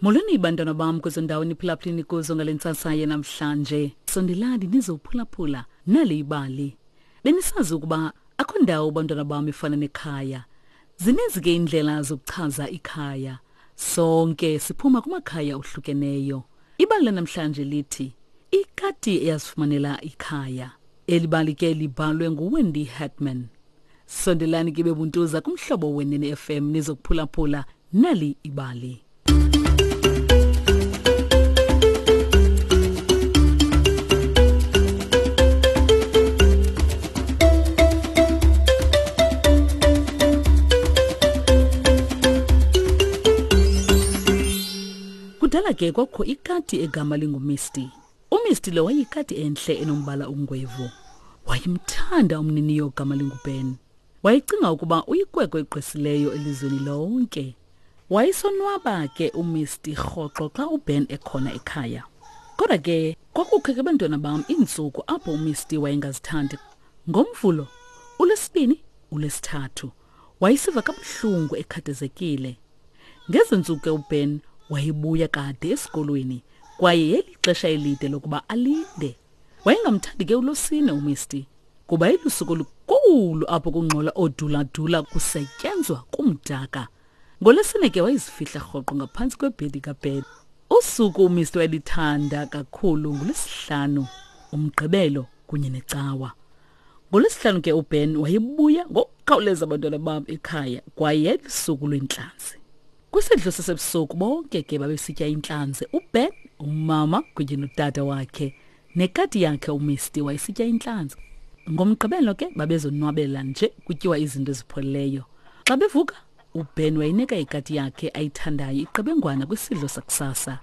Molweni bantwana bam kwezo ndawo niphulaphuleni kuzo ngale ntsasa yanamhlanje. Sondelani nizophulaphula nali ibali. Benisazi ukuba akho ndawo bantwana bam ifana nekhaya. Zininzi ke iindlela zokuchaza ikhaya. Sonke siphuma kumakhaya ohlukeneyo. Ibali lanamhlanje lithi ikati eyazifumanela ikhaya. Eli bali ke libhalwe nguWendy Hartman. Sondelani ke bebuntuza kumhlobo wenene FM nizokuphulaphula nali ibali. Kudala ke kwakho ikati egama linguMisty. UMisty lo wayeyikati enhle enombala ongwevu. Wayemthanda umniniyo ogama linguBen. Wayecinga ukuba uyikwekwe egqwesileyo elizweni lonke. Wayesonwaba ke uMisty rhoqo xa uBen ekhona ekhaya. Kodwa ke kwakukho ke bantwana bam iintsuku apho uMisty wayengazithandi. NgoMvulo, uLwesibini, uLwesithathu wayesiva kabuhlungu ekhathazekile. Ngezi ntsuku ke uBen wayebuya kade esikolweni kwaye yayilixesha elide lokuba alinde. Wayengamthandi ke uLosine uMisty kuba ilusuku olukhulu apho kungxola ooduladula kusetyenzwa kumdaka. NgoLwesine ke wayezifihla rhoqo ngaphantsi kwebhedi kaBen. Usuku uMisty wayelithanda kakhulu nguLwesihlanu, uMgqibelo kunye neCawa. NgoLwesihlanu ke uBen wayebuya ngokukhawuleza abantwana bam ekhaya kwaye yayilusuku lweentlanzi. Kwisidlo sasebusuku bonke ke babesitya intlanzi, uBen, umama kunye notata wakhe. Nekati yakhe uMisty wayesitya intlanzi. NgoMgqibelo ke babezonwabela nje kutyiwa izinto ezipholileyo. Xa bevuka, uBen wayinika ikati yakhe ayithandayo iqebengwana kwisidlo sakusasa.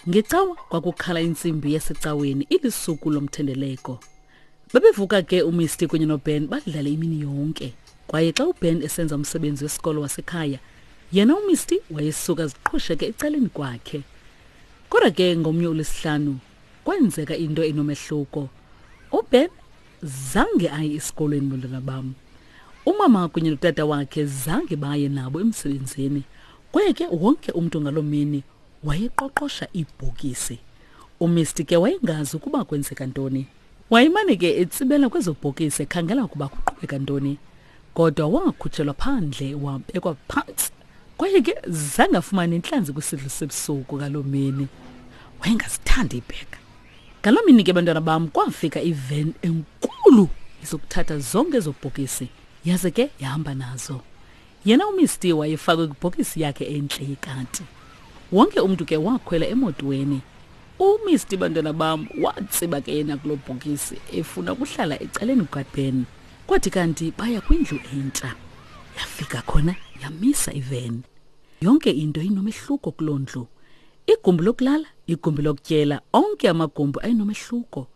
Ngecawa kwakukhala intsimbi yasecaweni ilisuku lomthendeleko. Babevuka ke uMisty kunye noBen badlale imini yonke. Kwaye xa uBen esenza umsebenzi wesikolo wasekhaya, yena uMisty wayesuka aziqhusheke ecaleni kwakhe. Kodwa ke ngomnye uLwesihlanu kwenzeka into enomehluko. UBen zange aye esikolweni bantwana bam. Umama kunye notata wakhe zange baye nabo emsebenzini. Kwaye ke wonke umntu ngaloo mini wayeqoqosha iibhokisi. UMisty ke wayengazi ukuba kwenzeka ntoni. Wayemane ke etsibela kwezo bhokisi ekhangela ukuba kuqhubeka ntoni. Kodwa wakhutshelwa phandle wabekwa phantsi. Kwaye ke zange afumane intlanzi kwisidlo sebusuku ngaloo mini. Wayengazithandi iibheka. Ngaloo mini ke bantwana bam kwafika iven enkulu izokuthatha zonke ezo bhokisi yaze ke yahamba nazo. Yena uMisty wayefakwe kwibhokisi yakhe entle yekati. Wonke umntu ke wakhwela emotweni. UMisty bantwana bam watsiba ke yena kuloo bhokisi efuna ukuhlala ecaleni kukaBen. Kwathi kanti baya kwindlu entsha. Yafika khona yamisa iveni. Yonke into inomehluko kuloo ndlu. Igumbi lokulala, igumbi lokutyela, onke amagumbi ayenomehluko.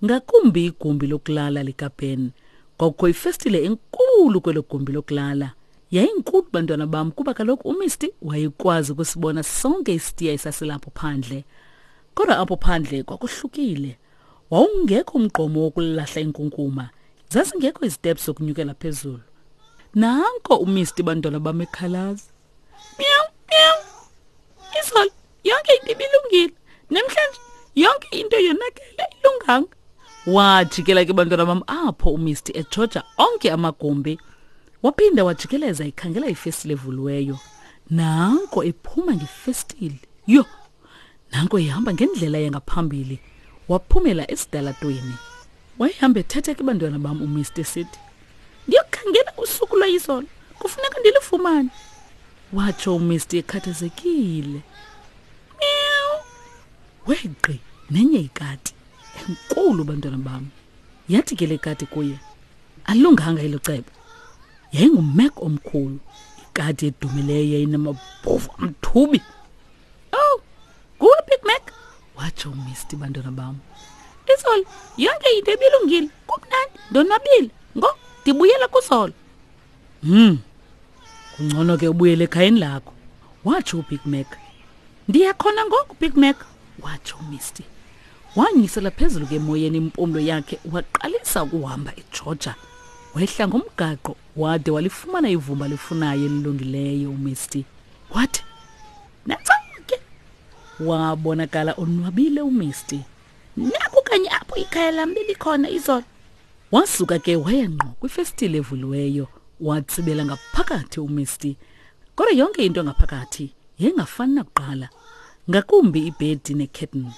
Ngakumbi igumbi lokulala likaBen. Kwakukho ifestile enkulu kwelo gumbi lokulala. Yayinkulu bantwana bam kuba kaloku uMisty wayekwazi ukusibona sonke isitiya esasilapho phandle. Kodwa apho phandle kwakuhlukile. Wawungekho umgqomo wokulahla inkunkuma. Zazingekho iziteps zokunyukela phezulu. Nanko uMisty bantwana bam ekhalaza. Meow, meow. Izolo yonke into ibilungile. Namhlanje yonke into yonakele ilunganga. Wajikela ke bantwana bam apho uMisty ejoja onke amagumbi. Waphinda wajikeleza ekhangela ifestile evuliweyo. Nanko ephuma ngefestile. Yho! Nanko ehamba ngendlela yangaphambili. Waphumela esidalatweni. Wayehamba ethetha ke bantwana bam uMr sithi, Ndiyokhangela usuku lwayizolo. Kufuneka ndilufumane. Watsho uMr ekhathazekile. Meow. Wegqi nenye ikati enkulu bantwana bam. Yathi ke le kati kuye, Alunganga elo cebo. Yayingumek omkhulu, ikati edumileyo yayinamabhovu amthubi. Oh, nguwe Big Mac? Watsho uMisty bantwana bam. Izolo yonke into ibilungile, kumnandi, ndonwabile. Ngo ndibuyela kuzolo. Kungcono ke ubuyele ekhayeni lakho, watsho uBig Mac. Ndiya khona ngoku Big Mac, watsho uMisty. Wanyisela phezulu ke emoyeni impumlo yakhe waqalisa ukuhamba eJoja. Wehla ngomgaqo wade walifumana ivumba lifunayo elilungileyo uMisty. Wathi, Nantso ke. Wabonakala onwabile uMisty. Naku kanye apho ikhaya lam belikhona izolo. Wasuka ke waya ngqo kwifestile evuliweyo, watsibela ngaphakathi uMisty. Kodwa yonke into ngaphakathi yayingafani nakuqala, ngakumbi ibhedi nekhethini.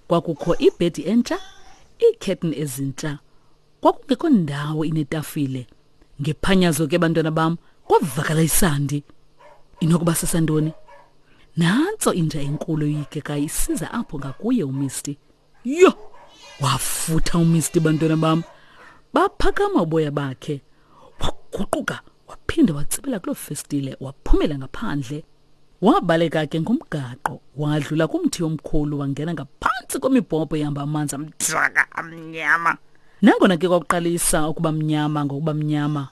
Kwakukho ibhedi entsha, iikhethini ezintsha. Kwakungekho ndawo inetafile. Ngephanyazo ke bantwana bam, kwavakala isandi. Inokuba sesantoni? Nantso inja enkulu eyikekayo isiza apho ngakuye uMisty. Yho! Wafutha uMisty bantwana bam. Baphakama uboya bakhe. Waguquka waphinde watsibela kuloo festile waphumela ngaphandle. Wabaleka ke ngomgaqo wadlula kumthi omkhulu wangena ngaphantsi kwemibhobho ehamba amanzi amdaka amnyama. Nangona ke kwakuqalisa ukuba mnyama ngokuba mnyama,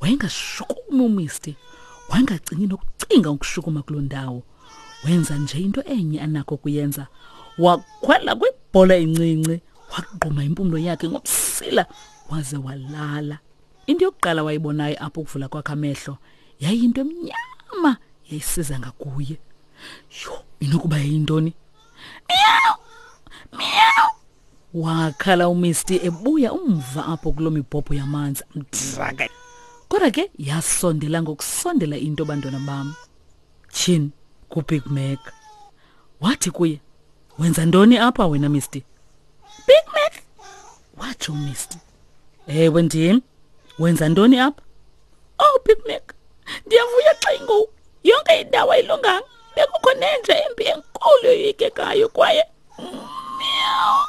wayengashukumi uMisty. Wayengacingi nokucinga ukushukuma kuloo ndawo. Wenza nje into enye anakho ukuyenza. Wakhwela kwibhola encinci, wagquma impumlo yakhe ngomsila waze walala. Into yokuqala wayibonayo apho ukuvula kwakhe amehlo yayiyinto emnyama yayisiza ngakuye. Yho, inokuba yayintoni? Miyawu! Miyawu! Wakhala uMisty ebuya umva apho kuloo mibhobho yamanzi amdaka. Kodwa ke yasondela ngokusondela into bantwana bam. Tyhini kuBig Mac. Wathi kuye, "Wenza ntoni apha wena Misty?" Big Mac, watsho uMisty. Ewe ndim. Wenza ntoni apha? Oh Big Mac, ndiyavuya xa ingoku. Yonke indawo ayilunganga. Bekukho nenja embi enkulu yoyikekayo kwaye meow.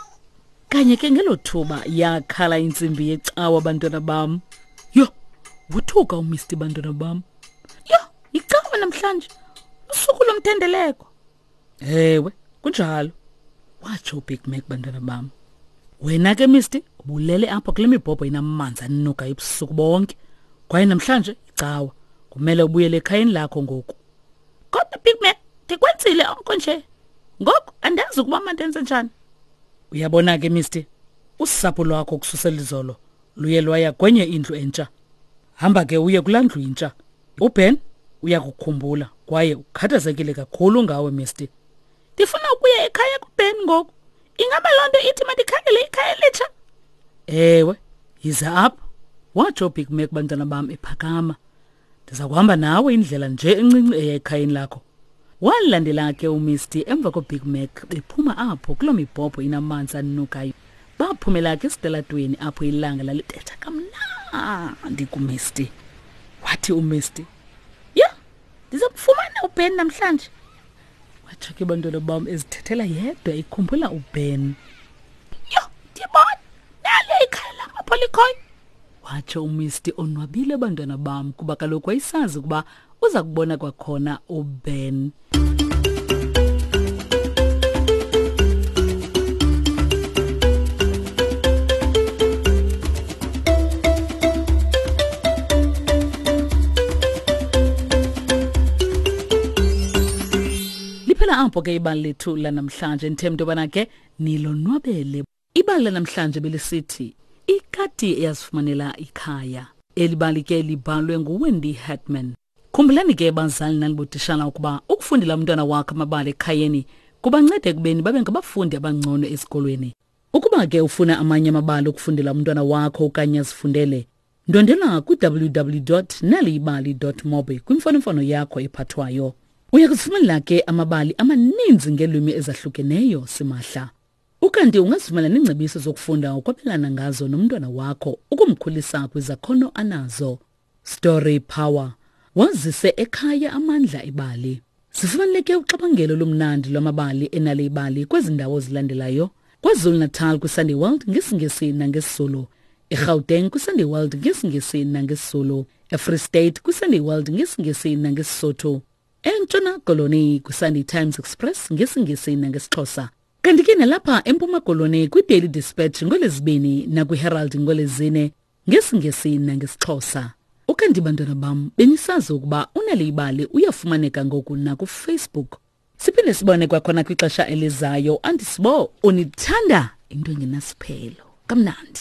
Kanye ke ngelo thuba yakhala intsimbi yecawa bantwana bam. Yho, wothuka uMisty bantwana bam. Yho, yicawa namhlanje. Usuku lomthendeleko. Ewe, kunjalo. Watsho uBig Mac bantwana bam. Wena ke Misty, ubulele apha kule mibhobho inamanzi anuka ebusuku bonke. Kwaye namhlanje icawa. Kumele ubuyele ekhayeni lakho ngoku. Kodwa Big Mac, ndikwenzile oko nje. Ngoku andazi ukuba mandenze njani. Uyabona ke Misty, usapho lwakho kususela izolo luye lwaya kwenye indlu entsha. Hamba ke uye kulaa ndlu intsha. UBen uyakukhumbula kwaye ukhathazekile kakhulu ngawe Misty. Ndifuna ukuya ekhaya kuBen ngoku. Ingaba loo nto ithi mandikhangele ikhaya elitsha? Ewe, yiza apha. Watsho uBig Mac bantwana bam ephakama. Ndiza kuhamba nawe indlela nje encinci eya ekhayeni lakho. Walandela ke uMisty emva koBig Mac bephuma apho kuloo mibhobho inamanzi anukayo. Baphumela ke esitalatweni apho ilanga lalibetha kamnandi kuMisty. Wathi uMisty, "Yho, ndiza kufumana uBen namhlanje." Watsho ke bantwana bam ezithethela yedwa ikhumbula uBen. Yho, ndiyabona naliya ikhaya lam apho likhoyo. Watsho uMisty onwabile bantwana bam kuba kaloku wayesazi ukuba uza kubona kwakhona uBen. Liphela apho ke ibali lethu lanamhlanje ndithemba into yobana ke nilonwabele. Ibali lanamhlanje belisithi ikati eyazifumanela ikhaya. Eli bali ke libhalwe nguWendy Hartman. Khumbulani ke bazali nanibotishala ukuba ukufundela umntwana wakho amabali ekhayeni kubanceda ekubeni babe ngabafundi abangcono esikolweni. Ukuba ke ufuna amanye amabali okufundela umntwana wakho okanye azifundele, ndwendela kwi-www.naliyibali.mobi kwimfonomfono yakho ephathwayo. Uya kuzifumanela ke amabali amaninzi ngeelwimi ezahlukeneyo simahla. Ukanti ungazifumana neengcebiso zokufunda ukwabelana ngazo nomntwana wakho ukumkhulisa kwizakhono anazo. Story Power. Wazise ekhaya amandla ebali. Sifumaneke uxabangelo lomnandi lwamabali enale ibali kwezi ndawo zilandelayo. KwaZulu-Natal kwiSunday World ngesiNgesi nangesiZulu. EGauteng kwiSunday World ngesiNgesi nangesiZulu. EFree State kwiSunday World ngesiNgesi nangeSisotho. ENtshona Koloni kwiSunday Times Express ngesiNgesi nangesiXhosa. Kanti ke nalapha eMpuma Koloni kwiDaily Dispatch ngoLwezibini nakwiHerald ngoLwezine ngesiNgesi nangesiXhosa. Ukanti bantwana bam benisazi ukuba uNal'ibali uyafumaneka ngoku nakuFacebook. Siphinde sibone kwakhona kwixesha elizayo. Andisibo unithanda into engenasiphelo. Kamnandi.